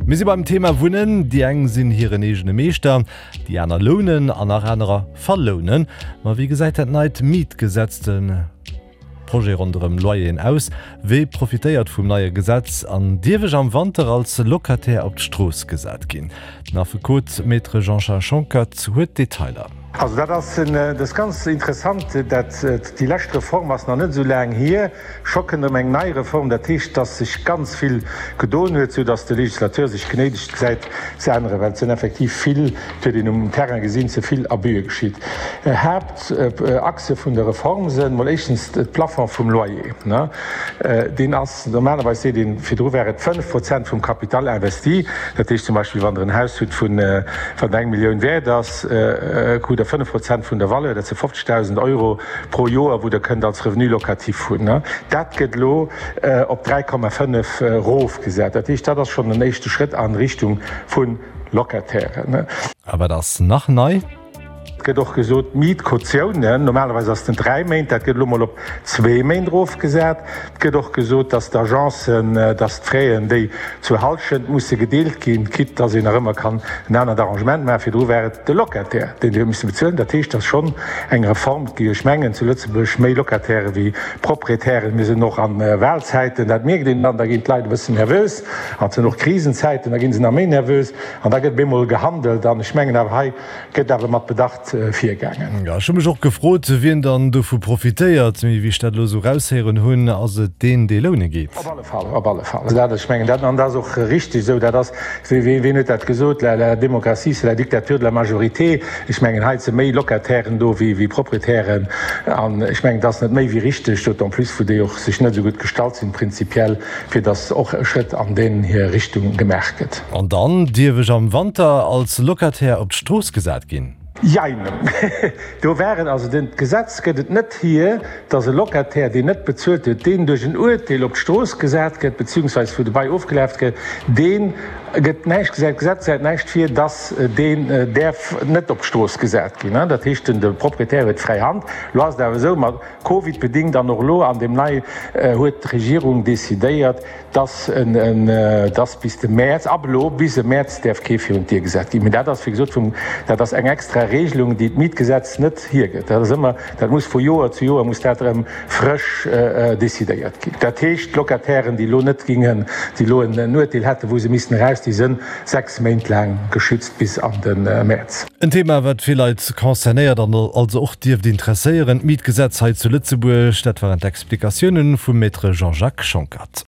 Mir si beim Thema Wunnen. Déi eng sinn hiren eegene Meeschter, déi aner lounen an nach anerer verlounen. Ma wéi gesäit dat neit Mietgesetz, de Projet ronderëm Loyeren aus? Wie profitéiert vum neie Gesetz an dierf ech am Wanter als Locataire op d'Strooss gesat ginn? Den Affekot Maître Jean-Charles Schonckert huet d'Detailer. Also dat ass, dat ass ganz interessant, dat déi lescht Reform ass nach net esou laang hier. Scho kënnt erëm eng nei Reform. Dat heescht, dass sech ganz vill gedoen huet, sou dass de Législateur sech genéidegt gesäit ze änneren, well et sinn effektiv vill, et huet een um Terrain gesinn, ze vill Abüe geschitt. Haaptachse vun der Reform sënn mol éischtens de Plafond vum Loyer. Deen ass, normalerweis seet een, virdru war et 5 Prozent vum Capital investi. Dat heescht zum Beispill, wann Der en Haus hutt vun, wat eng Millioun wäert ass, krut Der 5 Prozent vun der Valeur, dat si 50.000 Euro pro Joer, wou Der kënnt als Revenu locatif hunn. Dat gëtt elo op 3,5 erofgesat. Dat heescht, dat ass schonn en éischte Schrëtt a Richtung vu Locatairen. A wat ass nach nei? Et gëtt och gesot, d'Mietkautiounen, normalerweis ass den 3 Méint, dat gëtt elo mol op zwee Méint erofgesat. Et gëtt och gesot, dass d'Agencen, dass d'Fraisen, déi zur Hallschent musse gedeelt ginn, quitte dass een nach ëmmer kann en anert Arrangement maachen, virdru war et de Locataire, deen déi huet misse bezuelen. Dat heescht, dass schonn eng Reform, et gi jo, ech mengen, zu Lëtzebuerg méi Locataire wéi Proprietären. Mir sinn och a Wahlzäiten, dat mierkt een dann, da ginn d'Leit e bëssen nervös. An et sinn och Krisenzäiten, da gi se nach méi nervös an da gëtt op eemol gehandelt. An ech mengen awer, hei Gëtt awer mat Bedacht virgaangen. Jo, ech hu mech och gefrot, wien dann dovu profitéiert. Mee wéi ech dat elo esou raushéieren hunn, ass et deen, dee loune geet. Op alle Fall, op alle Fall. Dat, ech mengen, dat, an dat ass och richtig esou, dat ass, wien huet dat gesot, la, la démocratie, c'est la dictature de la majorité. Ech mengen, hei si méi Locatairen do wéi, wéi Proprietären. An ech mengen, dat ass net méi wéi richtig, d'autant plus wou déi och sech net esou gutt gestallt sinn prinzipiell, fir dass och e Schrëtt an deen hir Richtung gemaach gëtt. An dann dierf ech am Wanter als Locataire op d'Strooss gesat ginn? Jein. Do war et, also den d'Gesetz gëtt et net hier, dass e Locataire, deen net bezuelt huet, deen duerch en Uerteel op d'Strooss gesat gëtt, beziehungsweise wou de Bail ofgelaf gëtt, dee gëtt näischt gesat. D'Gesetz gesäit näischt vir, dass deen däerf net op d'Strooss gesat ginn. Dat heescht, den de Proprietär huet fräi Hand. Elo ass et awer esou, mat Covid bedingt an och elo an deem nei huet d'Regierung decidéiert, dass en, dass bis de Mäerz, ab elo bis e Mäerz däerf kee virun d'Dier gesat ginn. Mee dat ass, wéi gesot, vum, dat ass eng extra Regelung, déi d'Mietgesetz net hiergëtt. Dat ass ëmmer, dat muss vu Joer zu Joer muss dat erëm frësch decidéiert ginn. Dat heescht, d'Locatairen, déi elo net gingen, déi elo en Uerteel hätten, wou se missten eraus, déi sënn 6 Méint laang geschützt bis an de Mäerz. En Thema, wat vill Leit concernéiert an also och dierft interesséieren, d'Mietgesetz hei zu Lëtzebuerg. Dat waren d'Explikatiounen vum Maître Jean-Jacques Schonckert.